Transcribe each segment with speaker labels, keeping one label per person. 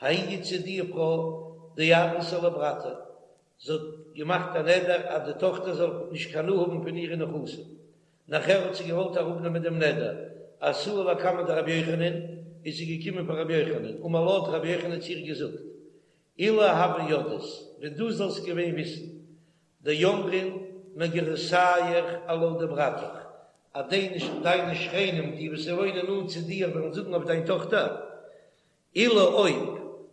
Speaker 1: ההיא איתתא די פרוי דאדרתה לברתה, זי האט געמאכט א נדר אז די טאכטער זאל נישט קיין הנאה האבן פון אירע נכסים, נאכער האט זי געוואלט אראפנעמען דעם נדר, אתא לקמיה דרבי יוחנן, איז זי געקומען פאר רבי יוחנן, אמר לה האט רבי יוחנן צו איר געזאגט, אילו הוה ידעת, ווען דו זאלסט געווען וויסן, דאמרין מגירסייך עלה דברתך, אז דיינע שכנים די וואס וואוינען נאנט צו דיר וועלן זאגן אויף דיין טאכטער, אילו אויב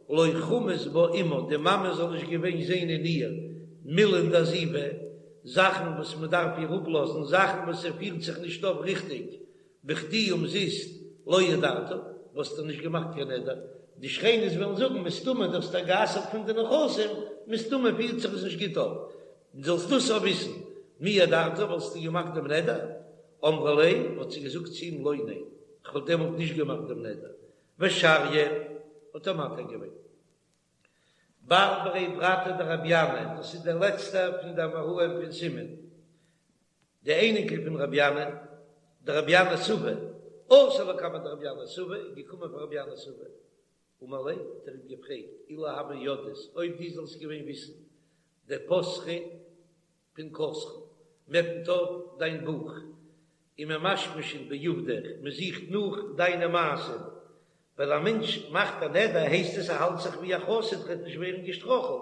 Speaker 1: לא חמאת בה אמה, די מאמע זאל נישט געווען זען אין איר מילין דעזיבה, זאכן וואס מען דארף איר אפלאזן, זאכן וואס זי פירט זיך נישט אויף ריכטיג, בכדי אומזיסט לא הדרת, וואלסטו נישט געמאכט קיין נדר, די שכנות וועלן זאגן מסתמא דו האסט איר גע'אסר'ט פון די נכסים, מסתמא פירט זיך עס נישט גוט אויף, זאלסט דאס אויך וויסן, מי הדרת, וואלסטו געמאכט דעם נדר? אמרה ליה, האט זי געזאגט צו אים לא ניין, כ'וואלט דעמאלט נישט געמאכט דעם נדר, ושריא האט ער מתיר געווען. בר ברי ברתיה דרבי ינאי, דאס איז דער לעצטער פון די אמוראים פון סימון, די אייניקל פון רבי ינאי, דרבי ינאי סבא, אתא לקמיה דרבי ינאי סבא, איז געקומען פאר רבי ינאי סבא, אמר ליה, האט ער אים געפרעגט, אילו הוה ידעת, אויב דו זאלסט געווען וויסן, דפתחי פנקסך, מ'עפנט אויף דיין בוך, וממשמשין בעובדיך, מען זוכט נאך דיינע מעשים, ווייל א מענטש מאכט א נדר הייסט עס ער האלט זיך ווי א חסיד וועט נישט ווערן געשטראכלט,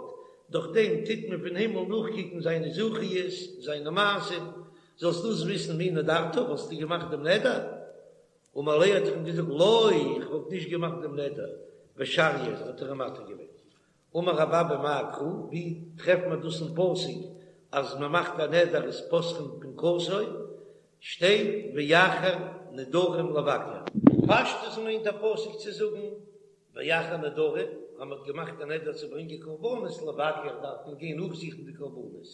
Speaker 1: דורך דעם טוט מען פון הימל נאכקוקן זיינע זכיות, זיינע מעשים, זאלסט דאס וויסן מי נדרת, וואלסטו געמאכט דעם נדר? אמר ליה האט ער אים געזאגט לא, איך וואלט נישט געמאכט דעם נדר, ושריא האט ער אים מתיר געווען. אמר רב אבא מאי קרא, ווי טרעפט מען דאס אין פסוק אז מען מאכט א נדר איז פותחין פנקסו, שטייט ואחר נדרים לבקר. פשטות מיינט דער פסוק צו זאגן ואחר נדרים, אז מען האט געמאכט א נדר צו ברענגען קרבנות לבקר דארף מען גיין נאכזוכן די קרבנות,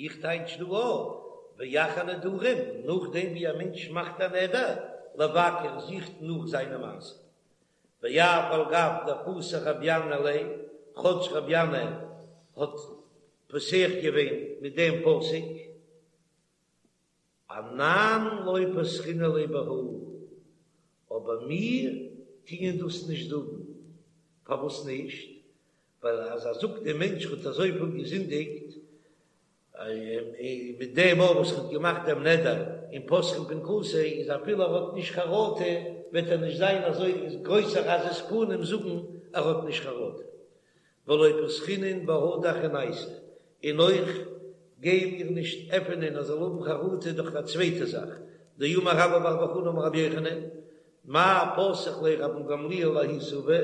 Speaker 1: איך טייטש דא אויך ואחר נדרים, נאכדעם ווי א מענטש מאכט א נדר, לבקר זוכט נאך זיינע מעשים. ואף על גב דפתח רבי ינאי ליה, כאטש רבי ינאי האט פותח געווען מיט דעם פסוק, אנן לא פתחינן ליה בהא, אבער מיר טוען דאס נישט זאגן, פארוואס נישט? ווייל אז ער זאגט דער מענטש האט אזויפיל געזינדיגט, מיט דעם אויך וואס ער האט געמאכט דעם נדר און פותחין פנקסו, איז אפילו ער האט נישט חרטה וועט ער נישט זיין אזוי גרויסער עזות פנים זאגן ער האט נישט חרטה. ולא פתחינן בהא דאחרנייתא, און אויך גייען מיר נישט עפענען ער זאל האבן חרטה דורך א צווייטע זאך, דאמר רבה בר בר חנה אמר רבי יוחנן, מאי פתח ליה רבן גמליאל לההוא סבא,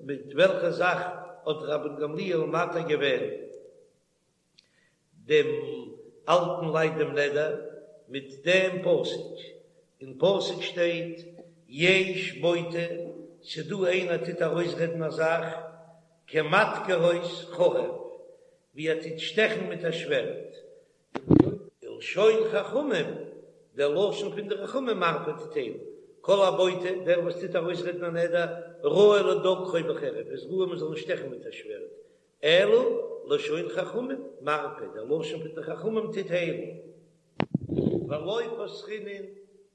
Speaker 1: מיט וועלכע זאך האט רבן גמליאל מתיר געווען דעם אלטן לייט דעם נדר, מיט דעם פסוק, אין פסוק שטייט יש בוטה, ס'דא איינער טוט ארויסרעדן א זאך כמדקרות חרב, ווי ער טוט שטעכן מיט א שווערד, ולשון חכמים, דער לשון פון די חכמים מרפא טוט היילן, כל הבוטה, דער וואס טוט ארויסרעדן א נדר, ראוי לדוקרו בחרב, איז ראוי מען זאל אים שטעכן מיט א שווערד, אלא לשון חכמים מרפא, דער לשון פון די חכמים טוט היילן. ולא פתחינן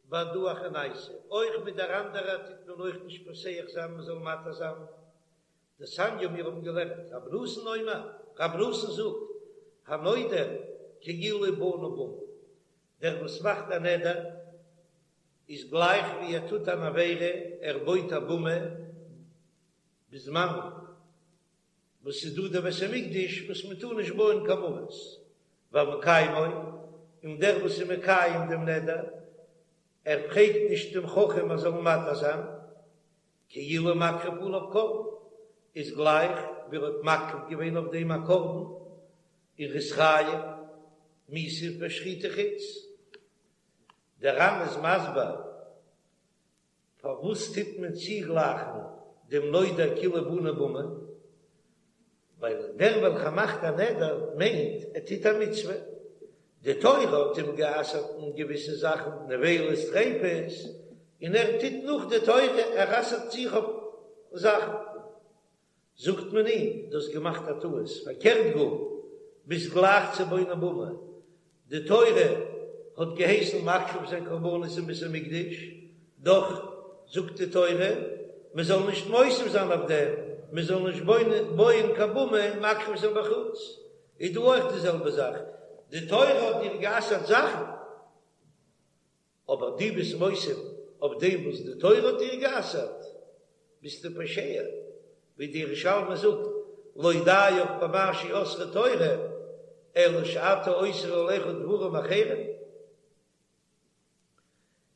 Speaker 1: בהדא אחרנייתא, אויך מיט דער אנדערער טוט מען אויך נישט פותח זיין מען זאל מתיר זיין. דתניא מיר האבן געלערנט, רבי נתן אומר, רבי נתן זאגט, הנודר כאילו בנה במה, דער וואס מאכט א נדר איז גלייך ווי ער טוט אן עבירה, ער בויט א במה בזמן וואס איז דא דער בית המקדש וואס מען טאר נישט בויען קיין במות, והמקיימו, און דער וואס איז מקיים דעם נדר, ער פרעגט נישט דעם חכם ער זאל אים מתיר זיין, כאילו מקריב עליו קרבן, איז גלייך ווי ער האט מקריב געווען אויף דעם א קרבן, און ער איז חייב מיתה פאר שחוטי חוץ. דער ר"ן איז מסביר פארוואס טוט מען צוגלייכן דעם נודר כאילו בנה במה? ווייל דער וועלכער מאכט א נדר מיינט ער טוט א מצוה, די תורה האט אים גע'אסר'ט אין געוויסע זאכן, נבילות טריפות, און ער טוט נאך די תורה, ער אסר'ט זיך אויף זאכן. זאגט מען אים, דו האסט געמאכט א טעות, פארקערט גאר, ביסט גלייך צו בונה במה, די תורה האט געהייסן מקריב זיין קרבנות אין בית המקדש, דאך זאגט די תורה מען זאל נישט מוסיף זיין אויף דעם. מען זאל נישט בויען קיין במה און מקריב זיין בחוץ, איז דא אויך די זעלבע זאך, די תורה האט דיר גע'אסר'ט זאכן, אבער דו ביסט מוסיף אויף דעם וואס די תורה האט דיר גע'אסר'ט, ביסטו פושע, ווי די ירושלמי זאגט, לא דיך במה שאסרה תורה, אלא שאתה אוסר עליך דברים אחרים.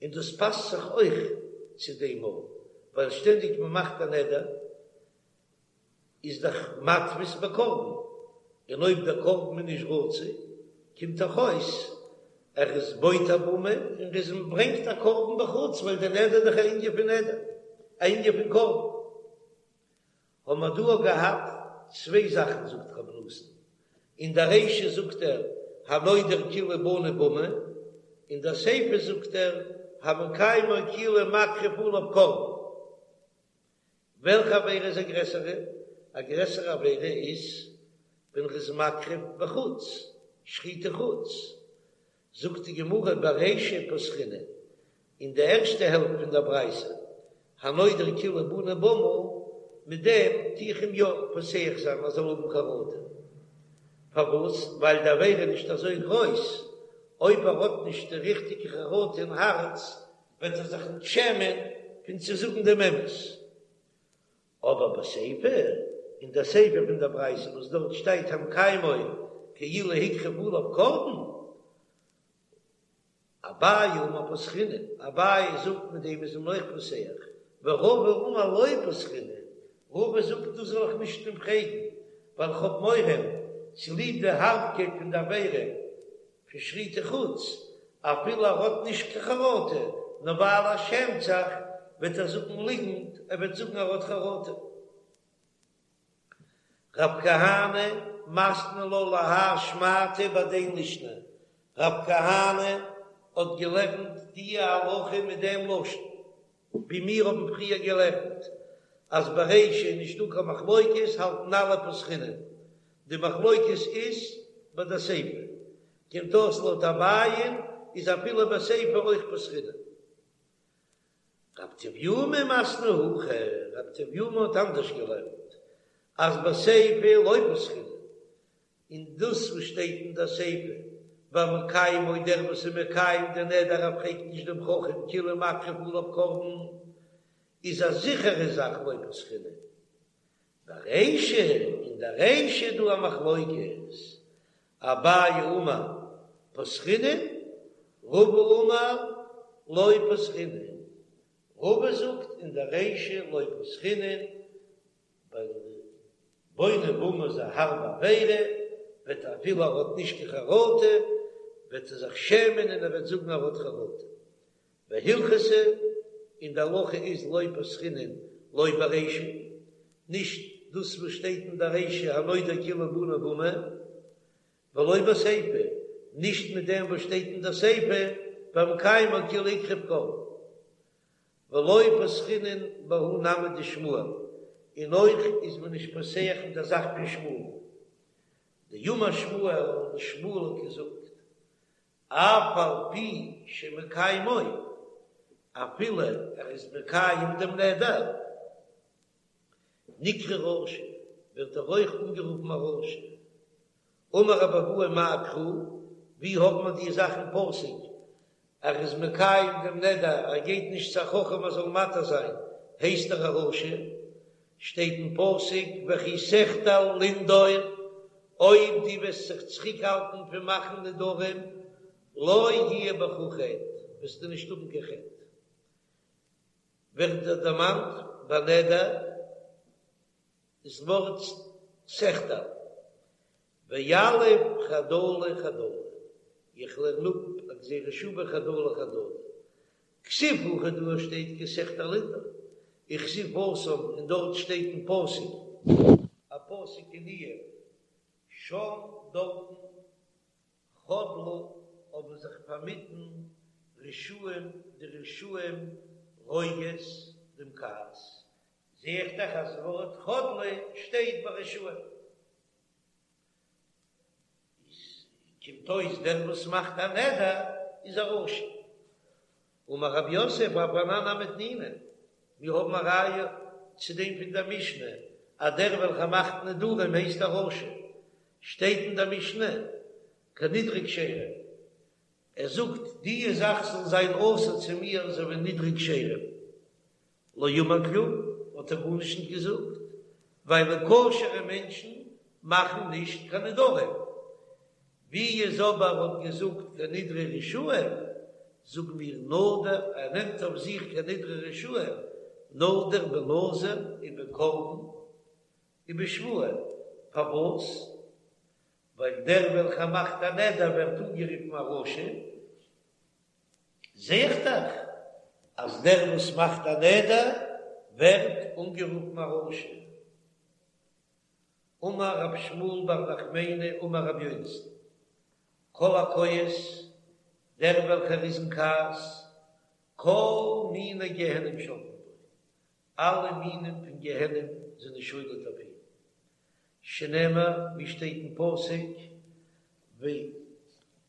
Speaker 1: און דאס פאסט זיך אויך צו דעם מאל, ווייל שטענדיג מען מאכט א נדר איז דאך מתפיס בקרבן, און אויב דער קרבן איז נישט רצוי קומט דאך אויס ער איז בויט א במה און ער איז ברענגט א קרבן בחוץ, ווייל דער נדר איז דאך א ענין פון נדר, א ענין פון קרבן. האבן מיר דא געהאט צוויי זאכן זאגט רבי נתן, אין דער רישא זאגט ער הנודר כאילו בנה במה, אין דער סיפא זאגט ער המקיימו כאילו מקריב עליו קרבן. וועלכע עבירה איז א גרעסערע? א גרעסערע עבירה איז ווען ר'איז מקריב בחוץ, שחוטי חוץ. זאגט די גמרא ברישא פתחינן, אין די ערשטע העלפט פון דער ברייתא, הנודר כאילו בנה במה, מיט דעם טו איך אים יא פותח זיין ער זאל האבן חרטה. פארוואס? ווייל די עבירה איז נישט אזוי גרויס, אויב ער האט נישט די ריכטיגע חרטה אין הארץ, וועט ער זיך נישט שעמען פון צו זאגן דעם אמת. אבער בסיפא, אין דער סיפא פון דער ברייתא וואס דארט שטייט המקיימו כאילו הקריב עליו קרבן, אביי אמר פתחינן, אביי זאגט מיט דעם איז מען אויך פותח, ורבא אמר לא פתחינן, רבא זאגט דאס זאל איך נישט אים פרעגן, ווייל איך האב מורא צוליב די הארבקייט פון די עבירה פון שחוטי חוץ, אפילו ער האט נישט קיין חרטה, נאר ווייל ער שעמט זיך וועט ער זאגן ליגנט, ער וועט זאגן ער האט חרטה. רב כהנא מתני לה להא שמעתא בהדין לישנא, רב כהנא האט געלערנט די הלכה מיט דעם לשון ווי מיר האבן פריער געלערנט אז ברישא איז נישטא קיין מחלוקת האלטן אלע פתחינן, די מחלוקת איז ביי די סיפא, קומט אויס לויט אביי'ן איז אפילו בסיפא אויך פתחינן. רב טביומי מתני הכי, רב טביומי האט אנדערש געלערנט אז בסיפא לא פתחינן, און דאס וואס שטייט אין דער סיפא והמקיימו דער וואס איז מקיים די נדר ער פרעגט נישט דעם חכם כאילו מקריב עליו קרבן איז א זיכערע זאך לא פתחינן. ברישא, אין דער רישא איז דא א מחלוקת, אביי אמר פתחינן, רבא אמר לא פתחינן, רבא זאגט אין דער רישא לא פתחינן, ווייל בונה במה איז א הארבע עבירה, וועט אפילו ער האט נישט קיין חרטה, וועט ער זיך שעמען און ער וועט זאגן ער האט חרטה. והלכתא, און די הלכה איז לא פתחינן לא ברישא, נישט דאס וואס שטייט אין די רישא הנודר כאילו בנה במה, ולא בסיפא, נישט מיט דעם וואס שטייט אין די סיפא והמקיימו כאילו הקריב קרבן. ולא פתחינן בהא נמי דשמואל, און אויך איז מען נישט פותח מיט די זאך פון שמואל. דאמר שמואל, שמואל האט געזאגט, אף על פי שמקיימו, אפילו ער איז מקיים דעם נדר, נקרא רשע, ווערט ער אויך אנגערופן א רשע. אמר רבי אבהו מאי קרא, ווי האט מען די זאך אין פסוק, ער איז מקיים דעם נדר, ער גייט נישט צו א חכם ער זאל מתיר זיין, הייסט ער א רשע? שטייט אין פסוק וכי תחדל לנדור, אויב דו וועסט זיך צוריקהאלטן פון מאכן נדרים, לא יהיה בך חטא, וועסטו נישט האבן קיין חטא. ווערט דא דערמאנט ביי נדר דאס ווארט תחדל, ויליף חדלה חדלה, איך לערן אפ א גזירה שווה חדלה חדלה, כתיב הכא דא שטייט כי תחדל לנדור, וכתיב התם און דארט שטייט אין פסוק א פסוק אין איוב שם דארטן חדלו האבן זיך פארמיטן רשעים די רשעים רוגז דעם כעס, זע איך דאך אז ווארט חדלו שטייט ביי רשעים. איז קומט אויס דער וואס מאכט א נדר איז א רשע. אמר רב יוסף אף אנן נמי תנינא, מיר האבן א ראיה צו דעם פון דער משנה. אז דער וועלכער מאכט נדרים הייסט א רשע, שטייט אין דער משנה כנדרי כשרים, ער זאגט די זאך זאל זיין אסור צו מיר אזוי ווי נדרי כשרים, לא אמר כלום, האט ער גארנישט נישט געזאגט, ווייל כשר'ע מענטשן מאכן נישט קיין נדרים, ווי איז אבער האט געזאגט כנדרי רשעים, זאג מיר נדר, ער נעמט אויף זיך כנדרי רשעים, נדר בנזיר ובקרבן ובשבועה, פארוואס? ווייל דער וועלכער מאכט א נדר ווערט אנגערופן א רשע, זע איך דאך אז דער וואס מאכט א נדר ווערט אנגערופן א רשע. אמר רב שמואל בר נחמני אמר רבי יונתן, כל הכועס, דער וועלכער איז אין כעס, כל מיני גיהנום שולטין בו, אלע מינים פון גיהנום זענען שולט אויף אים, שנאמר, ווי שטייט אין פסוק,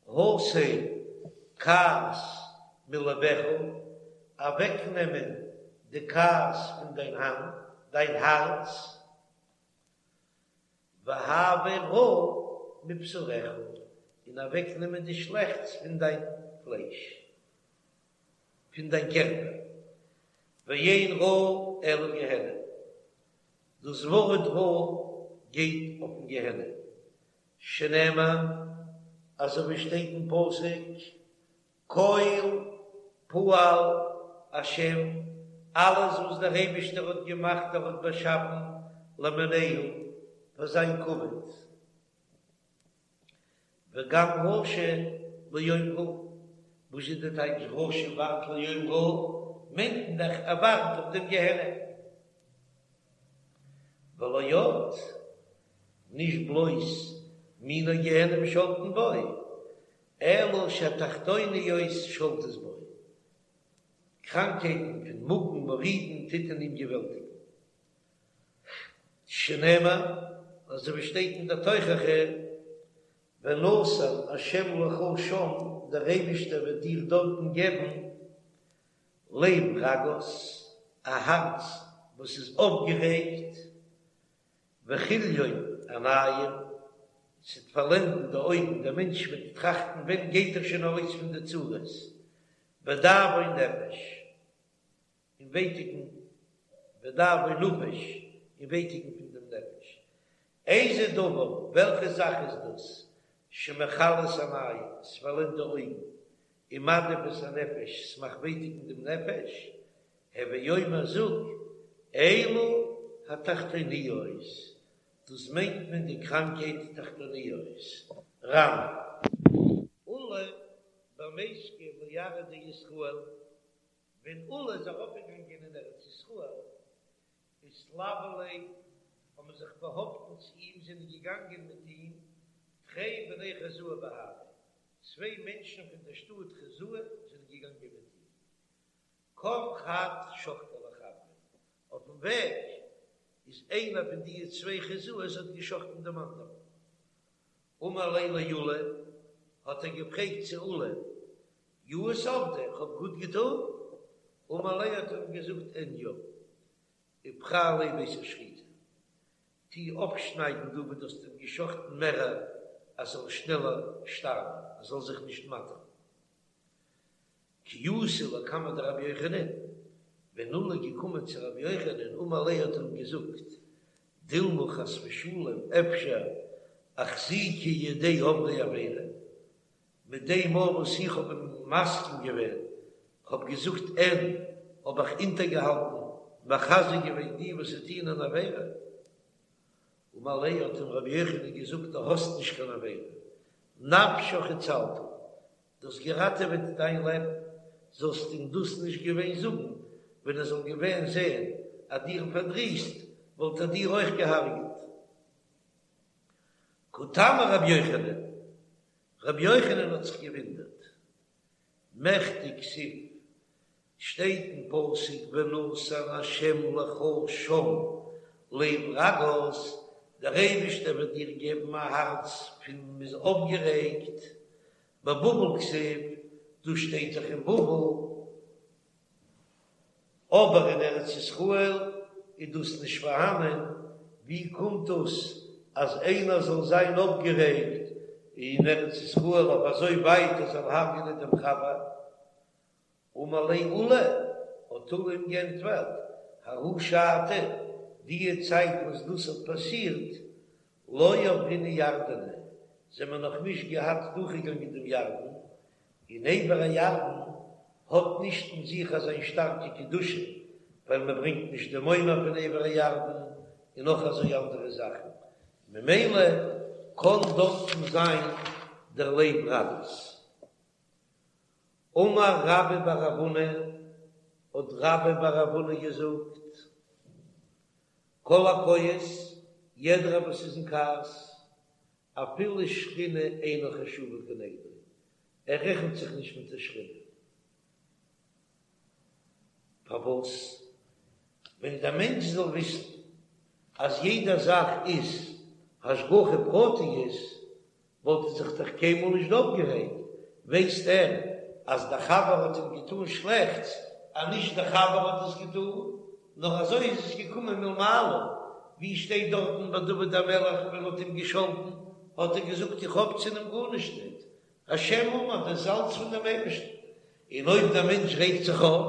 Speaker 1: והסר כעס מלבך, אוועקנעמען די כעס פון דיין האנט, דיין הארץ, והעבר רע מבשרך, און אוועקנעמען די שלעכטס פון דיין פלייש, פון דיין קערפער, ואין רע אלא גיהנום, דאס ווארט רע גייט אויפן גיהנום, שנאמר, אזוי ווי שטייט אין פסוק, כל פעל השם, אלעס וואס דער אייבישטער האט געמאכט, ער האט באשאפן, למענהו, פאר זיין כבוד. וגם רשע ליום רעה, וואס איז די טייטש רשע ווארט ליום רעה? מיינט מען דאך ער ווארט אויף דעם גיהנום. ולא עוד, נישט בלויז מיני גיהנום שולטין בו, אלא שהתחתוניות שולטות בו, קראנקייטן פון מאגן מורידין טוט אין אים געוועלטיגן. שנאמר, אזוי ווי שטייט אין דער תוכחה, ונתן השם לך שם, דער אייבישטער וועט דיר דארטן געבן לב רגז, א הארץ וואס איז אויפגערעגט, וכליון עינים, ס'וועט פארלענדן די אויגן, דער מענטש וועט טראכטן ווען גייט ער שוין ארויס פון די צרות, ודאבון נפש. און ווייטיקן ודאבון נפש, און ווייטיקן פון דעם נפש. איזה דבר, וועלכע זאך איז דאס, שמכלה את העינים, ס'פארלענדט די אויגן, ומדאיב את הנפש, ס'מאכט ווייטיקן דעם נפש, הוי אומר זאג, אלו התחתוניות, דאס מיינט מען די קראנקהייט תחתוניות. ר"ן. עולא בר מיסקא לארעא דישראל, ווען עולא איז ארויפגעגאנגען אין ארץ ישראל, אתלוו ליה, האבן זיך באהאפטן צו אים, זענען געגאנגען מיט אים, תרי בני חוזאי בהדיה, צוויי מענטשן פון דער שטאט חוזאי זענען געגאנגען מיט אים. קם חד שחטיה לחבריה, אויפן וועג איז איינער פון די צוויי חוזאי'ס האט געשחטן דעם אנדערן. אמר ליה לעולא, האט ער געפרעגט צו עולא, יאות עבדי, איך האב גוט געטון? אמר ליה האט ער אים געזאגט אין יא, ופרע ליה בית השחיטה, טו אפשניידן דא וואו דו האסט אים געשחטן מערער אז ער זאל שנעלער שטארבן, ער זאל זיך נישט מאטערן. כי אתא לקמיה דרבי יוחנן, ווען עולא איז געקומען צו רבי יוחנן אמר ליה האט ער אים געזאגט, דילמא חס ושלום אפשר אחזיקי ידי עוברי עבירה, מיט דעם מאל וואס איך האב אים מסכים געווען, כ'האב געזאגט אין, האב איך אונטערגעהאלטן, מחזק געווען די וואס טוען אן עבירה. אמר ליה האט אים רבי יוחנן געזאגט דו האסט נישט קיין עבירה, נפשך הצלת, דו האסט געראטעוועט דיין לעבן, זאלסט אים דאס נישט געווען זאגן, ווען ער זאל געווען זען אז דיר פארדריסט, וואלט ער דיר אויך געהארגעט. קא תמה רבי יוחנן, רבי יוחנן האט זיך געוואונדערט, מכדי כתיב, שטייט אין פסוק ונתן השם לך שם לב רגז, דער אייבערשטער וועט דיר געבן א הארץ פון מ'איז אויפגערעגט, בבבל כתיב, דאס שטייט דאך אין בבל, אבער אין ארץ ישראל איז דאס נישט פארהאנען. ווי קומט דאס אז איינער זאל זיין אויפגערעגט אין ארץ ישראל אויף אזוי ווייט ער זאל הרג'נען דעם חבר? אמר ליה עולא, האט עולא אים געענטפערט, ההיא שעתא, דיע צייט וואס דאס האט פאסירט, לא עברינן ירדנא, זעמער נאך נישט געהאט דורכגעגאנגען דעם ירדן, און עבר הירדן האט נישט אין זיך אזיין שטארקע קדושה, ווייל מען ברענגט נישט דעם עומר פון עבר הירדן, און נאך אזוי אנדערע זאכן, ממילא קען דארטן זיין דער לב רגז. אמר רבה בר רב הונא, האט רבה בר רב הונא געזאגט, כל הכועס, יעדער וואס איז אין כעס, אפילו שכינה אינה חשובה כנגדו, ער רעכנט זיך נישט מיט די שכינה. פארוואס? ווען דער מענטש זאל וויסן אז יעדע זאך איז השגחה פרטית, וואלט ער זיך דאך קיינמאל נישט אויפגערעגט, ווייסט ער אז דער חבר האט אים געטאן שלעכטס, אז נישט דער חבר האט עס געטאן, נאר אזוי איז עס געקומען מלמעלה, ווי שטייט דארטן ביי דוד המלך ווען מען האט אים געשאלטן, האט ער געזאגט איך האב צו אים גארנישט ניט, השם אמר, דאס איז אלץ פון דעם אייבערשטן, און אויב דער מענטש רעגט זיך אויף,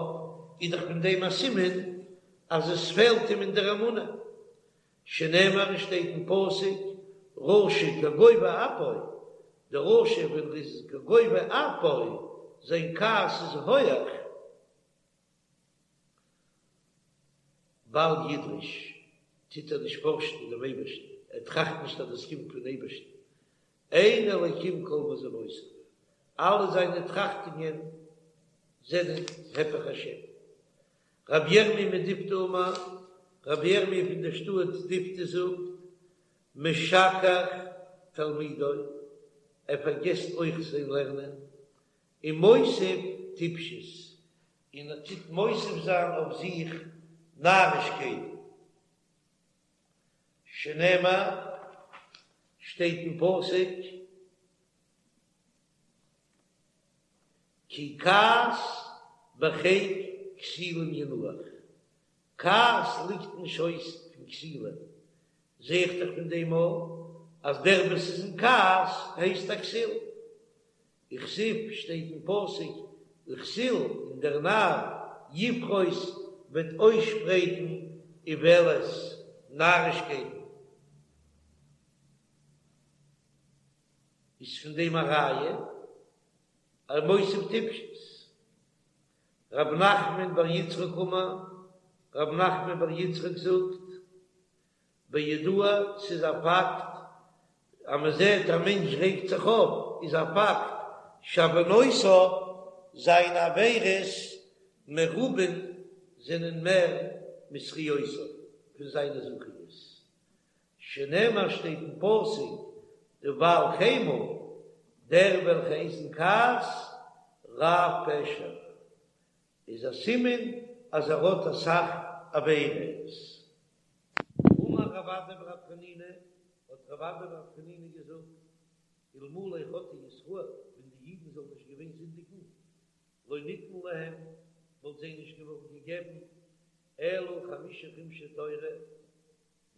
Speaker 1: איז דאך פון דעם א סימן אז עס פעלט אים אין דער אמונה, שנאמר עס שטייט אין פסוק רשע כגובה אפו, דער רשע ווען ער איז כגובה אפו, זיין כעס איז הויעך, בל ידרש, טוט ער נישט פארשן דעם אייבערשטן, ער טראכט נישט אז דאס קומט פון אייבערשטן, אין אלקים כל מזמותיו, אלע זיינע טראכטונגען זענען הפך השם. רבי ירמי' מדיפתי אמר, רבי ירמי' פון דער שטאט דיפתי זאגט, משכח תלמודו, ער פארגעסט אויך זיין לערנען, ומוסיף טיפשות, און ער טוט מוסיף זיין אויף זיך נארישקייטן, שנאמר, שטייט אין פסוק, כי כעס בחיק כסילים ינוח, כעס ליגט אין שויס פון כסילים, זע איך דאך פון דעם אויך אז דער וואס איז אין כעס הייסט א כסיל, וכתיב שטייט אין פסוק וכסיל און דער נאר יפרוס וועט אויסשפרייטן איוולת נארישקייטן. איז פון דעם א ראיה אז מוסיף טיפשות. רב נחמן בר יצחק אמר, רב נחמן בר יצחק זאגט, בידוע, ס'איז א פאקט, אז מען זעט א מענטש רעגט זיך אויף, איז א פאקט, שעוונותיו, זיינע עבירות מרובין זענען מער מזכיותיו, פון זיינע זכיות. שנאמר שטייט אין פסוק דבעל חמה, דער וועלכער איז אין כעס, רב פשע, איז א סימן אז ער האט אסאך עבירות. אמר רב אדא בר חנינא, האט רב אדא בר חנינא געזאגט, אלמלא חטאו ישראל, ווען די אידן זאלן נישט געווען זינדיגן, לא ניתן להם, וואלט זיי נישט געווארן געגעבן, אלא חמשה חומשי תורה,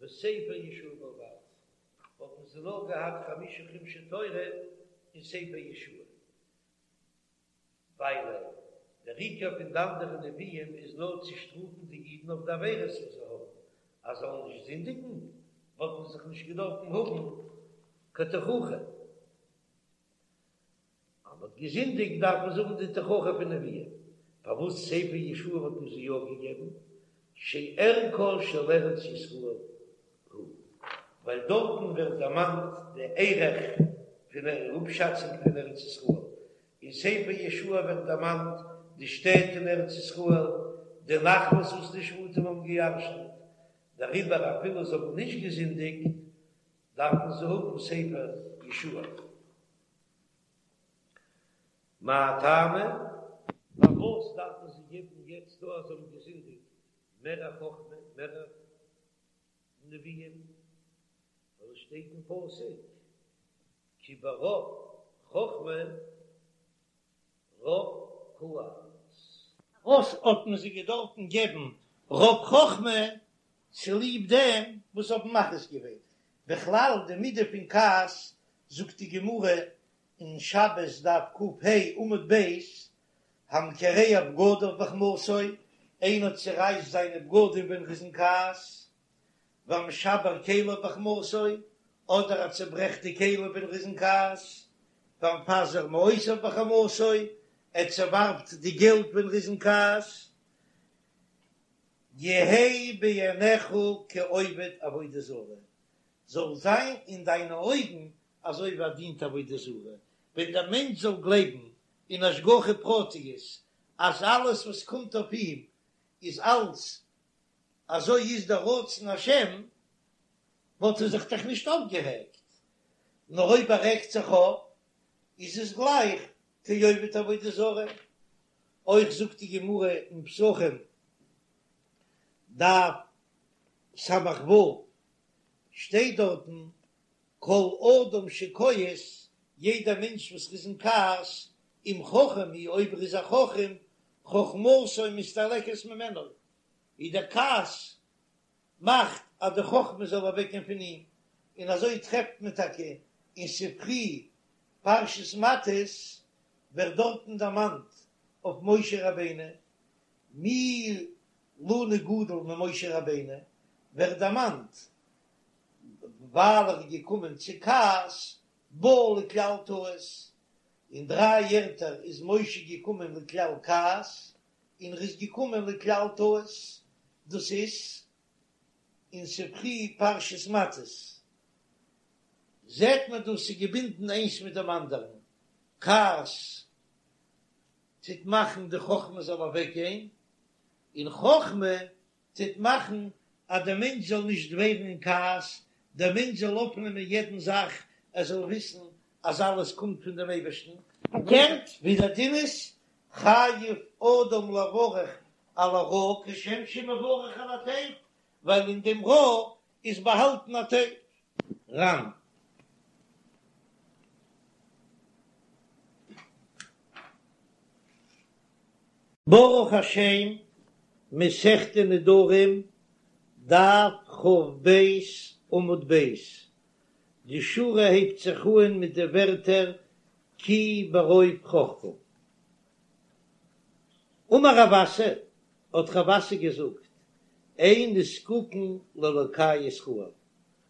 Speaker 1: וספר יהושע בלבד, וואלטן זיי נאר געהאט חמשה חומשי תורה און ספר יהושע, ווייל דער עיקר פון די אנדערע נביאים איז נאר צו שטראפן די אידן אויף די עבירות וואס זיי האבן, אז זיי זאלן נישט זינדיגן, וואלטן זיי זיך נישט געדארפן האבן קיין תוכחה. אז מ'האט געזינדיגט דארף מען זאגן די תוכחה פון נביאים, פארוואס ספר יהושע האט מען זיי יא געגעבן, שערכה של ארץ ישראל הוא, ווייל דארטן ווערט דערמאנט די ערך פון אפשאצונג פון ארץ ישראל, אין ספר יהושע ווערט דערמאנט די שטעט אין ארץ ישראל, די נחלות וואס די שבטים האבן געירשנט, דעריבער אפילו זיי האבן נישט געזינדיגט דארפן זיי האבן ספר יהושע. מאי טעמא? פארוואס דארף מען זיי געבן יעצט דא אז זיי האבן געזינדיגט מער א חכמה, מער א נביאים? ווייל עס שטייט אין פסוק כי ברוב חכמה רב כעס.
Speaker 2: וואס האט מען זיי געדארפן געבן רוב חכמה? צוליב דעם.
Speaker 1: וואס האבן מכעיס געווען. בכלל די מידה פון כעס, זאגט די גמרא אין שבת דף ק"ה עמוד ב', המקרע בגדיו בחמתו, איינער צערייסט זיינע בגדים ווען ער איז אין כעס, והמשבר כליו בחמתו, אדער ער צעברעכט די כלים ווען ער איז אין כעס, והמפזר מעותיו בחמתו, ער צעווארפט די געלט ווען ער איז אין כעס, יהא בעיניך כעובד עבודה זרה, זאל זיין אין דיינע אויגן אזוי ווי ער דינט עבודה זרה, ווען דער מענטש זאל גלייבן אין השגחה פרטיות אז אלעס וואס קומט אויף אים איז אלץ אזוי איז דער רצון השם, וואלט ער זיך דאך נישט אויפגערעגט, נאר אויב ער רעגט זיך אויף איז עס גלייך כעובד עבודה זרה. אויך זאגט די גמרא אין פסחים דף ס"ו, שטייט דארטן כל אדם שכועס, יעדער מענטש וואס איז אין כעס, אם חכם הוא אויב ער איז א חכם, חכמתו מסתלקת ממנו, איז דער כעס מאכט אז די חכמה זאל אוועקגיין פון אים, און אזוי טרעפט מען טאקע אין ספרי פרשת מטות ווערט דארטן דערמאנט אויף משה רבינו, מי לנו גדול ממשה רבינו, ווערט דערמאנט ווייל ער איז געקומען צו כעס בא לכלל טעות, אין דריי ערטער איז משה געקומען לכלל כעס, און ער איז געקומען לכלל טעות, דאס איז אין ספרי פרשת מטות, זעט מען דאס איז געבינדן איינס מיט דעם אנדערן, כעס טוט מאכן די חכמה זאל אוועקגיין, און חכמה טוט מאכן אז דער מענטש זאל נישט ווערן אין כעס, דער מענטש זאל אויפנעמען יעדן זאך, ער זאל וויסן אז אלעס קומט פון דעם אייבערשטן, פארקערט ווי דער דין איז, חייב אדם לברך על הרעה כשם שמברך על הטוב, ווייל אין דעם רע איז באהאלטן א טוב. ר"ן. ברוך השם, מסכת נדרים, דף כ"ב עמוד ב', די שורה הייבט זיך אהן מיט די ווערטער כי ברוב חכמה. אמר רב אסי, האט רב אסי געזאגט, אין נזקקין לאלקי ישראל,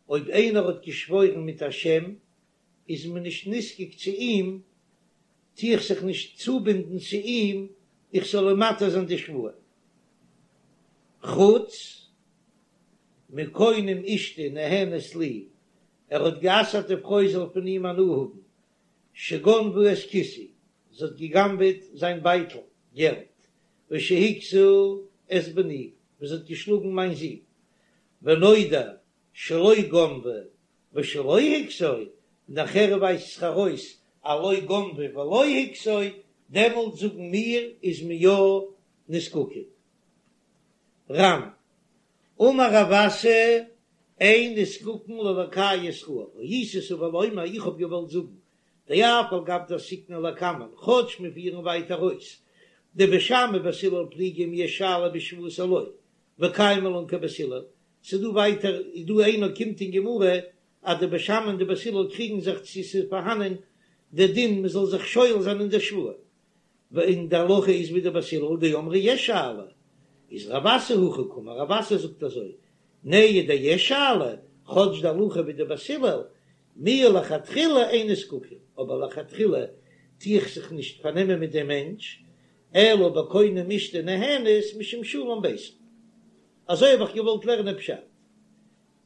Speaker 1: אויב איינער האט געשוואוירן מיט א שם, איז מען נישט נזקק צו אים, טו איך זיך נישט צובינדן צו אים איך זאל אים מתיר זיין די שבועה. חוץ מקונם אשתי נהנית לי, ער האט גע'אסר'ט די פרוי זאל פון אים הנאה האבן, שגנבה את כיסי, זי האט גע'גנב'עט זיין בייטל געלט, ושהכתה את בני, און זי האט געשלאגן מיין זון, ונודע שלא גנבה ושלא הכתה, נאכער ווייזט זיך ארויס אז לא גנבה ולא הכתה, דעמאלט זאגן מיר איז מען יא נזקקין. ר"ן, אמר רב אסי, אין נזקקין לאלקי ישראל, הייתי סבור לומר, איך האב געוואלט זאגן, דאף על גב דעסקינן לקמן, כאטש מיר פירן ווייטער אויס, דבית שמאי ובית הלל פליגי אם יש שאלה בשבועות או לא, וקיימא לן כבית הלל, ס'איז דא ווייטער איז דא איינער קומט אין גמרא אז די בית שמאי און די בית הלל קריגן זיך צו ס'איז פארהאנען די דין מ'זאל זיך שואל זיין אין די שבועה, און די הלכה איז ווי די בית הלל דאמרי יש שאלה, איז רב אסי הכי קאמר, רב אסי זאגט אזוי, נהי דיש שאלה, כאטש די הלכה ווי די בית הלל, מיהו לכתחילה אין נזקקין, אבער לכתחילה טו איך זיך נישט פארנעמען מיט דעם מענטש, אלא בקונם אשתי נהנית משום שלום ביתה. אזוי האב איך געוואלט לערנען פשט.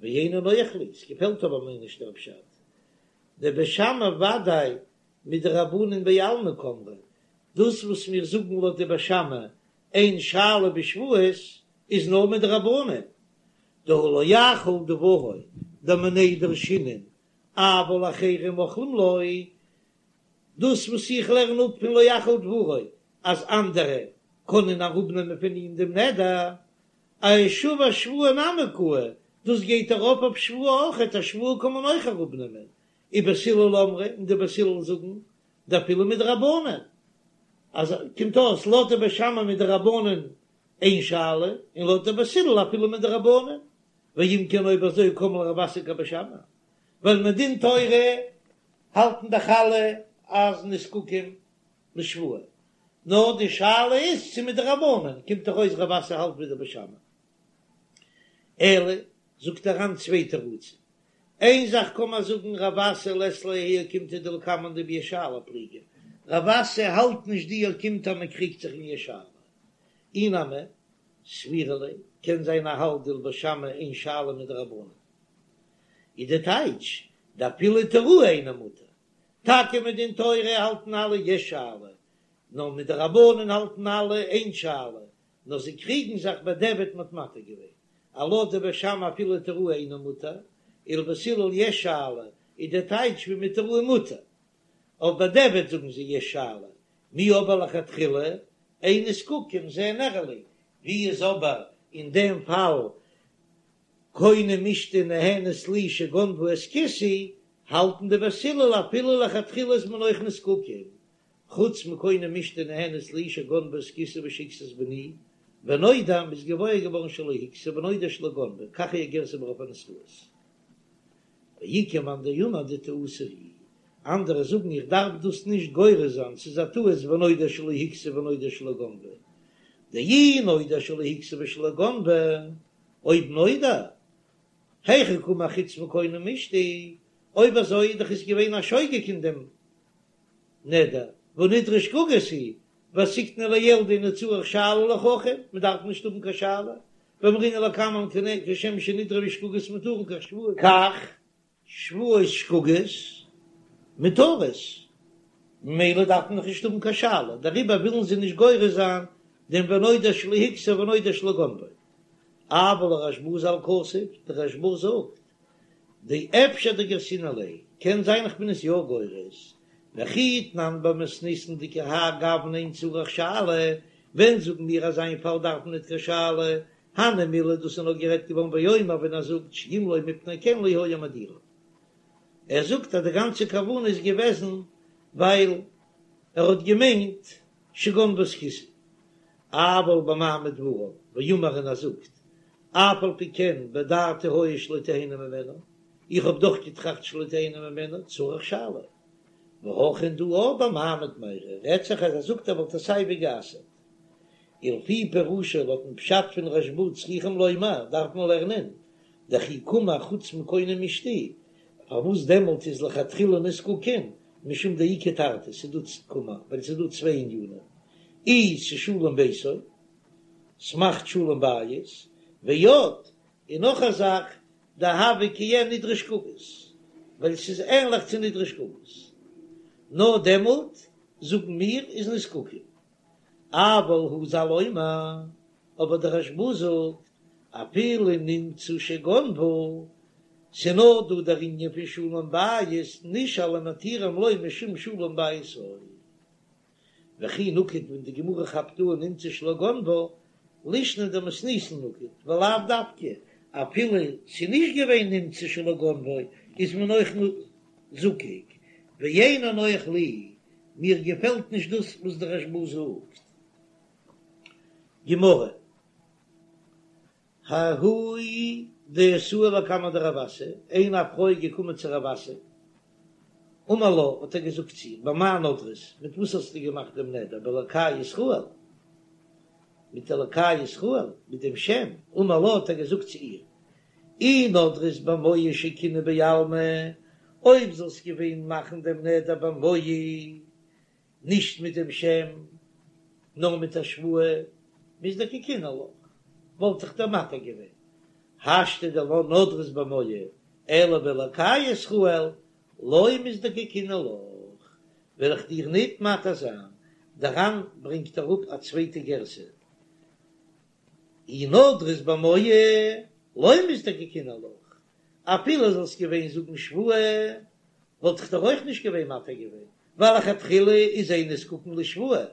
Speaker 1: ואינו נוח לי, ס'געפעלט אבער מיר נישט דער פשט. דבית שמאי ודאי מדרבנן בעלמא קאמרי, דאס וואס מיר זאגן לויט די בית שמאי אין שאלה בשבועות איז נאר מדרבנן, דהא לא יחול דברו דמיניה דרשינן אבל אחרים מוחלים לו, דאס וואס איך לערן אפ פון לא יחל דברו אז אנדערע קענען אראפנעמען פון אים דעם נדר, אשבע שבועה נמי קאי, דאס גייט ארויף אויף שבועה אויכעט, א שבועה קען מען אויך אראפנעמען, ובית הלל אמרי, און די בית הלל זאגן דאפילו מדרבנן, אז קומט אויס לויט די בית שמאי מדרבנן אין שאלה, און לויט די בית הלל אפילו מדרבנן. ואם כן אויב אזוי קם ליה רב אסי כבית שמאי, ווייל מדין תורה האלטן דאך אלע אז נזקקים לשבועה, נאר די שאלה איז צו מדרבנן, קומט דאך אויס רב אסי האלט ווי די בית שמאי. אלא זאגט דער ר"ן צוויי תירוצים, איין זאך קען מען זאגן רב אסי לית ליה האי אוקימתא דלקמן דביש שאלה פליגי, רב אסי האלט נישט די אוקימתא אז מען קריגט זיך אין יש שאלה, אי נמי סבירא ליה, קען זיין ער האלט דלבית שמאי אין שאלה מדרבנן. איז די טייטש דאפילו היתירוה אינו מותר, טאקע מדין תורה האלטן אלע יש שאלה, נאר מדרבנן האלטן אלע אין שאלה, נאר זיי קריגן זיך בדיעבד מ'האט מתיר געווען, אז לויט די בית שמאי אפילו היתירוה אינו מותר, ולבית הלל יש שאלה, איז די טייטש ווי מהיתירוה מותר, אויף בדיעבד זאגן זיי יש שאלה, מיהו אבער לכתחילה אין נזקקים זה נראה לי, ווי איז אבער אין דעם פאל קונם אשתי נהנית לי שגנבה את כיסי, האלטן די בית הלל אפילו לכתחילה איז מען אויך נזקקים, חוץ מקונם אשתי נהנית לי שגנבה את כיסי ושהכסת בני, ונודע מ'איז געוואויר געווארן שלא הכתה ונודע שלא גנבה, כך היא הגירסא ברוב הנוסחאות. ואיכא מאן דאמר דטעותא היא, אנדערע זאגן איך דארף דאס נישט גורס זיין, ס'איז א טעות ונודע שלא הכתה ונודע שלא גנבה, דאי נודע שלא הכתה ושלא גנבה, אויב נודע, היכי קאמר חוץ מקונם אשתי, אויב אזוי איז דאך עס געווען א שוגג אין דעם נדר, והא נדרה שגגות הוא, ועסקינן לעיל דאינו צריך שאלה לחכם, מען דארף נישט האבן קיין שאלה, ואמרינן לקמן כשם שנדרי שגגות מותרין כך שבועות, כך שבועות שגגות מותרות, ממילא דארף מען דאך נישט האבן קיין שאלה, דעריבער ווילן זיי נישט גורס זיין דעם ונודע שלא הכתה ונודע שלא גנבה. אבל לרשב"א ז"ל כתב, דער רשב"א זאגט, דאפשר דגרסינן ליה, קען זיין איך בין עס יא גורס, וכי תנן במתניתין דכהאי גוונא אין צריך שאלה, ווען זאגן מיר אז אין פאל דארף מען ניט קיין שאלה, הני מילי דאס איז נאר גערעדט געווארן באומר ווען ער זאגט שאם לא מפני כן לא היה מדירה. ער זאגט אז די גאנצע כוונה איז געוועזן ווייל ער האט געמיינט שגנבה את כיסי. אבל במעמיד דבריו ואמר און ער זאגט אף על פי כן בדעתי היה שלא תהנה ממנה, איך האב דאך געטראכט שלא תהנה ממנה, צריך שאלה. והכא דא במעמיד מיירי רעדט זיך אז ער זאגט ער וואלט עס סייווי גע'אסר'ט. ולפי פירושו לויטן פשט פון רשב"א צריכים לומר דארף מען לערנען דכי קאמר חוץ מקונם אשתי, פארוואס דעמאלט איז לכתחילה נזקקין משום דאיכא תרתי ס'איז דא קאמר ווייל ס'איז דא צוויי ענינים אי ס'שלום ביתו ס'מאכט שלום בית ועוד און נאך א זאך דהוה כעין נדרי שגגות ווייל ס'איז ענליך צו נדרי שגגות נאר דעמאלט זאגן מיר איז נזקקין אבל הוא ז"ל אומר, אבער דער רשב"א זאגט, אפילו נמצא שגנבה, ס'נאר דא דער ענין פון שלום בית, נשאל ומתירים לו משום שלום ביתו. וכי נקט ווען די גמרא כאפט אן נמצא שלא גנבה, לישנא דמתניתין נקט, ולאו דווקא, אפילו ס'נישט געווען נמצא שלא גנבה, איז מען אויך זקוק, ואינו נוח לי, מיר געפעלט נישט דאס וואס דער רשב"א זאגט. גמרא, ההיא דאתאי לקמיה דרב אסי, איין א פרוי איז געקומען צו רב אסי, אמר לה, האט ער געזאגט צו איר, במאי נדרת, מיט וואס האסטו געמאכט דעם נדר, באלקי ישראל, מיט אלקי ישראל, מיט דעם שם, אמר לה, האט ער געזאגט צו איר, אי נדרת במוהי שקינוי בעלמא, אויב זאלסט געווען מאכן דעם נדר במוהי, נישט מיט דעם שם, נאר מיט א שבועה, מזדקקינא לך, וואלט איך דיר מתיר געווען. השתא דלא נדרת במוהי, אלא באלקי ישראל, לא מזדקקינא לך, וועל איך דיר ניט מתיר זיין. דער ר"ן ברענגט אראפ א צווייטע גירסא. אי נדרת במוהי לא מזדקקינא לך, אפילו זאלסט געווען זאגן שבועה וואלט איך דיר אויך נישט געווען מתיר געווען, ווייל לכתחילה איז אין נזקקין לשבועה,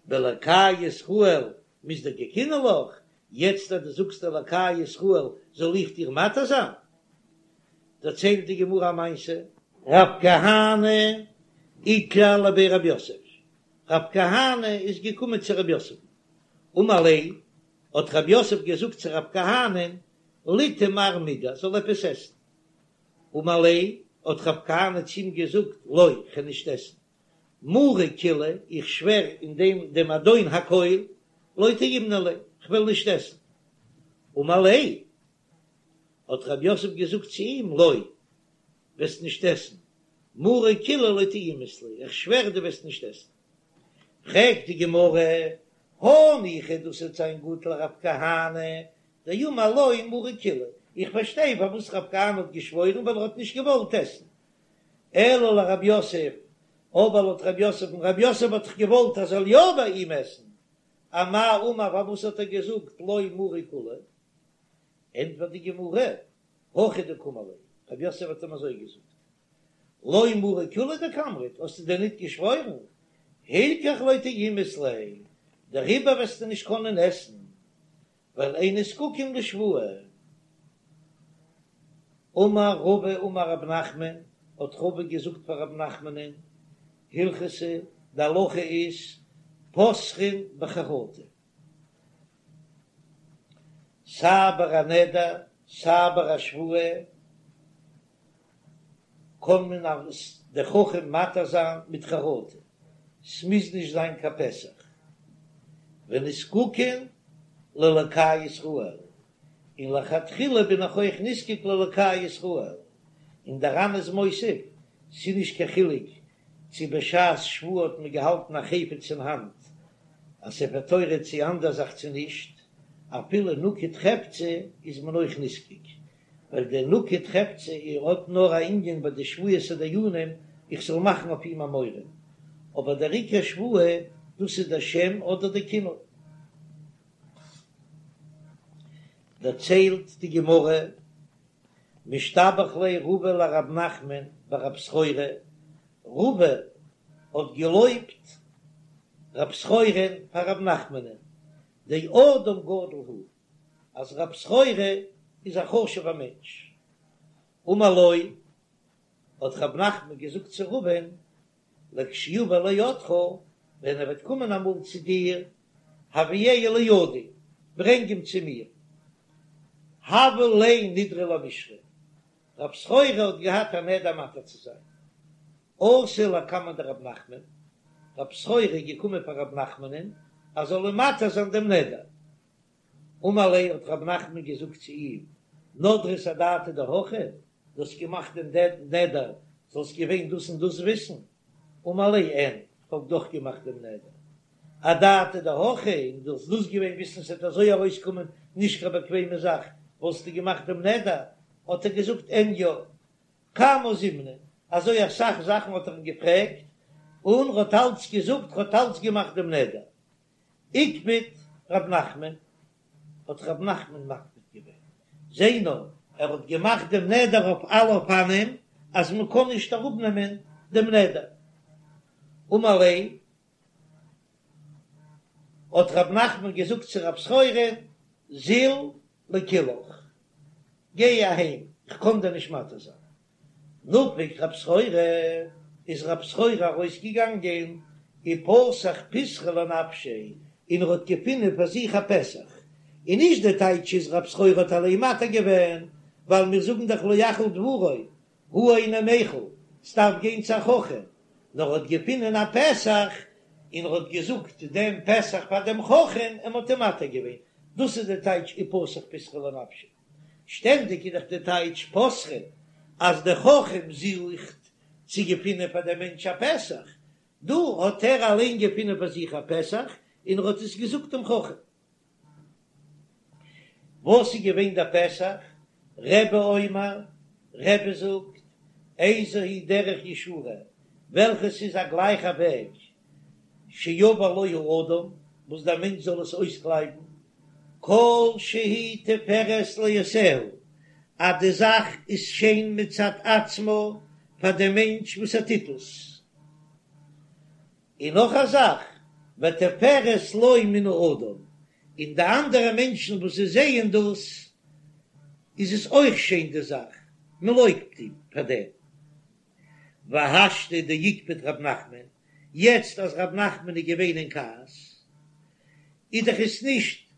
Speaker 1: באלקי ישראל מזדקקינא לך, יעצט אז דו זאגסט אלקי ישראל זאל איך דיר מתיר זיין? דערציילט די גמרא א מעשה. רב כהנא איקלע לבי רב יוסף, רב כהנא איז געקומען צו רב יוסף, אמר ליה, האט רב יוסף געזאגט צו רב כהנא'ן, ליטעי מר מידי, זאל עפעס עסן. אמר ליה, האט רב כהנא צו אים געזאגט, לא, כ'וועל נישט עסן. מרי כולא, איך שווער אין דעם דעם אדון הכל, לא טעימנא ליה, כ'וועל נישט עסן. אמר ליה, האט רב יוסף געזאגט צו אים, לא, וועסט נישט עסן, מרי כולא לא טעימת ליה, איך שווער דו וועסט נישט עסן. פרעגט די גמרא, הניחא דאס וועט זיין גוט לרב כהנא, דאמר לא מרי כולא, איך פארשטיי פארוואס רב כהנא האט געשוואוירן ווייל ער האט נישט געוואלט עסן, אלא לרב יוסף, אבער לויט רב יוסף'ן, רב יוסף האט דאך געוואלט ער זאל יא ביי אים עסן, אמאי אמר פארוואס האט ער געזאגט לא מרי כולא? ענטפערט די גמרא, הכי דקאמר ליה, רב יוסף האט אים אזוי געזאגט, לא מרי כולא דקאמרת, האסטו דען ניט געשוואוירן? הילכך לא טעימת ליה, דעריבער וועסטו נישט קענען עסן, ווייל אין נזקקין לשבועה. אמר רבא אמר רב נחמן, האט רבא געזאגט פאר רב נחמנ'ן, הלכתא, די הלכה איז, פותחין בחרטה. סיי ביי א נדר סיי ביי א שבועה קען מען אלס דער חכם מתיר זיין מיט חרטה, ס'מוז נישט זיין קיין פתח. ונזקקין לאלקי ישראל, און לכתחילה בין איך אויך נזקק לאלקי ישראל, און דער ר"ן איז מוסיף, ס'איז נישט קיין חילוק צו בשעת שבועה האט מען געהאלטן א חפץ אין האנט, א ספר תורה צו אנדער זאך צו נישט, אפילו נקוט חפצא איז מען אויך נזקק, ווייל דער נקוט חפצא האט נאר א ענין ביי די שבועת הדיינים איך זאל מאכן אויף אים א מורא, אבער דער עיקר שבועה דאס איז דער שם אדער דער כינוי. דערציילט די גמרא משתבח ליה רבא לרב נחמן בר רב סחורה, רבא האט געלויבט רב סחורה'ן פאר רב נחמנ'ן, דאדם גדול הוא, אז רב סחורה איז א חשוב'ער מענטש. אמר לו, האט רב נחמן געזאגט צו רבא'ן, לכשיבא לידך, ווען ער וועט קומען אמאל צו דיר, הביאהו לידי, ברענג אים צו מיר. הוה ליה נדרא למישרי, רב סחורה האט געהאט א נדר מתיר צו זיין. אתא לקמיה דרב נחמן, רב סחורה איז געקומען פאר רב נחמנ'ן אז זאל אים מתיר זיין דעם נדר. אמר ליה האט רב נחמן געזאגט צו אים, נדרת אדעתא דהכי, דו האסט געמאכט דעם נדר, זאלסט געווען דאס און דאס וויסן, אמר ליה אין, כ'האב דאך געמאכט דעם נדר, אדעתא דהכי, און דו זאלסט דאס געווען וויסן ס'וועט אזוי ארויסקומען נישט קיין באקוועמע זאך, וואלסטו געמאכט דעם נדר, האט ער געזאגט אין יא, כמה זימנין, אזוי אסאך זאכן האט ער אים געפרעגט, און ר'האט אלץ געזאגט ר'האט אלץ געמאכט דעם נדר. איקפד רב נחמן, האט רב נחמן מקפיד געווען, זע נאר, ער האט געמאכט דעם נדר אויף אלע אופנים אז מען קען נישט אראפנעמען דעם נדר. אמר ליה, האט רב נחמן געזאגט צו רב סחורה, זיל לקילעך, גיי אהיים, איך קען דיר נישט מתיר זיין. נפק רב סחורה, איז רב סחורה ארויסגעגאנגען, ופתח פתחא לנפשיה, און ער האט געפונען פאר זיך א פתח, און נישט די טייטש איז רב סחורה האט אליין מתיר געווען, ווייל מיר זאגן דאך לא יחל דברו, הוא אינו מיחל, ס'דארף גיין צו א חכם, נאר ער האט געפונען א פתח, און ער האט געזאגט דעם פתח פאר דעם חכם, און מ'האט אים מתיר געווען, דאס איז די טייטש ופתח פתחא לנפשיה. שטענדיג איז דאך די טייטש פותחין אז דער חכם זוכט צו געפינען פאר דעם מענטש א פתח, דא האט ער אליין געפינען פאר זיך א פתח און ער האט עס געזאגט דעם חכם. וואס איז געווען דער פתח? רבי אומר, רבי זאגט, איזו היא דרך ישרה, וועלכעס איז א גלייכע וועג, שיבור לו האדם, וואס דער מענטש זאל עס אויסקלייבן, כל שהיא תפארת לעושיה, אז די זאך איז שיין מצד עצמה פאר דעם מענטש וואס ער טוט עס. און נאך א זאך, ותפארת לו מן האדם, און די אנדערע מענטשן וואס זיי זעען דאס, איז עס אויך שיין די זאך, מען לויבט אים פאר דעם. והשתא דאיקפד רב נחמן, יעצט אז רב נחמן איז געווען אין כעס, איז דאך עס נישט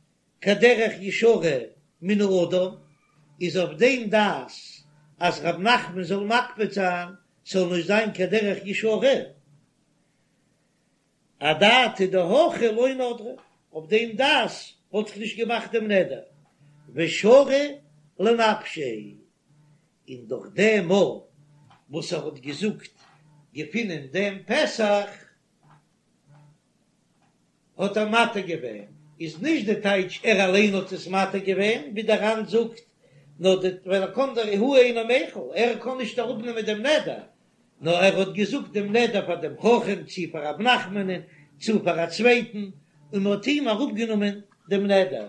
Speaker 1: קיין דרך ישרה מן האדם, איז אויף דעם דעת אז רב נחמן זאל מקפיד זיין ס'זאל נישט זיין קיין דרך ישרה, אדעתא דהכי לא נדרה, אויף דעם דעת וואלט איך נישט געמאכט דעם נדר, ושרי לנפשיה, און דורך דעם מאל וואס ער האט געזאגט געפינען דעם פתח האט ער מתיר געווען, איז נישט די טייטש ער אליין האט עס מתיר געווען, ווי דער ר"ן זאגט, נאר די ווייל ער קען דער הוא אינו מיחל, ער קען נישט אראפנעמען דעם נדר, נאר ער האט געזאגט דעם נדר פאר דעם חכם, צו פאר רב נחמנ'ן, צו פאר א צווייטן, און מען האט אים אראפגענומען דעם נדר.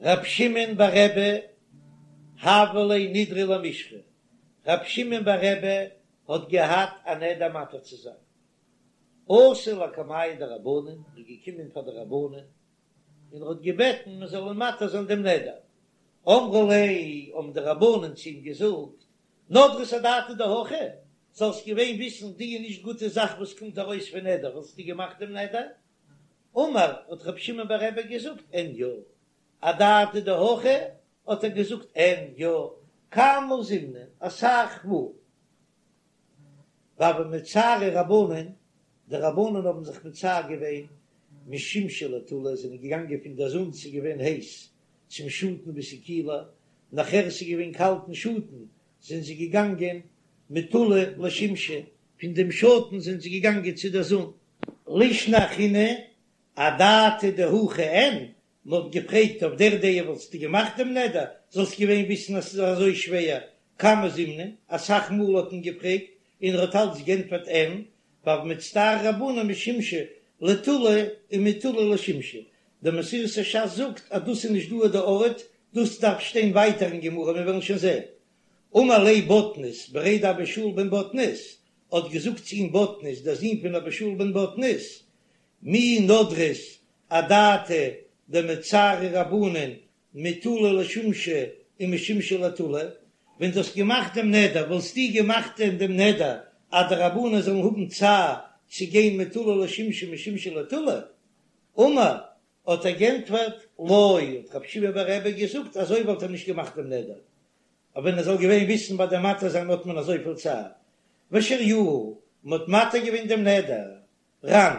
Speaker 1: רב שמעון בר רבי הוה ליה נדרא למישרי, רב שמעון בר רבי האט געהאט א נדר מתיר צו זיין, אתא לקמייהו דרבנן, איז געקומען פאר די רבנן און ער האט געבעטן מען זאל אים מתיר זיין דעם נדר, אמרו ליה, האבן די רבנן צו אים געזאגט, נדרת אדעתא דהכי, זאלסט געווען וויסן די נישט גוטע זאך וואס קומט ארויס פון נדר, וואלסטו געמאכט דעם נדר? אמר, האט רבי שמעון בר רבי געזאגט, אין יא, אדעתא דהכי, האט ער געזאגט, אין יא, כמה זימנין, אסאך מאל. והוו מצטערי רבנן, די רבנן האבן זיך מצער געווען, משימשא לטולא, זענען געגאנגען פון דער זון, ס'איז געווען הייס, צום שאטן וואו ס'איז קילער, נאכער ס'איז געווען קאלט אין שאטן, זענען זיי געגאנגען מטולא לשימשא, פון דעם שאטן זענען זיי געגאנגען צו דער זון. לישנא אחרינא, אדעתא דהכי אין, מען האט געפרעגט אויף דער דעה וואלסטו געמאכט דעם נדר, זאלסט געווען וויסן אז ס'איז אזוי שווער, כמה זימנין, אסאך מאל האט מען געפרעגט און ער האט אלץ גענטפערט אין, והוו מצטערי רבנן משימשא לטולא ומטולא לשימשא, דער מסורת הש"ס זאגט אז דאס איז נישט דא די ארט, דאס דארף שטיין ווייטער אין גמרא, מיר וועלן שוין זען. אמר ליה בטנית בריה דאבא שאול בן בטנית, האט געזאגט צו אים בטנית דער זון פון אבא שאול בן בטנית, מי נדרת אדעתא דמצערי רבנן מטולא לשימשא ומשימשא לטולא, ווען דו האסט געמאכט דעם נדר וואלסטו געמאכט דעם נדר אז די רבנן זאלן האבן צער צו גיין מטולא לשימשא ומשימשא לטולא? אמר, האט ער גענטפערט, לא, האט רבי שמעון בר רבי געזאגט, אזוי וואלט ער נישט געמאכט דעם נדר, אבער ווען ער זאל געווען וויסן ביי דעם מתיר זיין האט מען אזויפיל צער, ושריוה, מען האט מתיר געווען דעם נדר, ר"ן.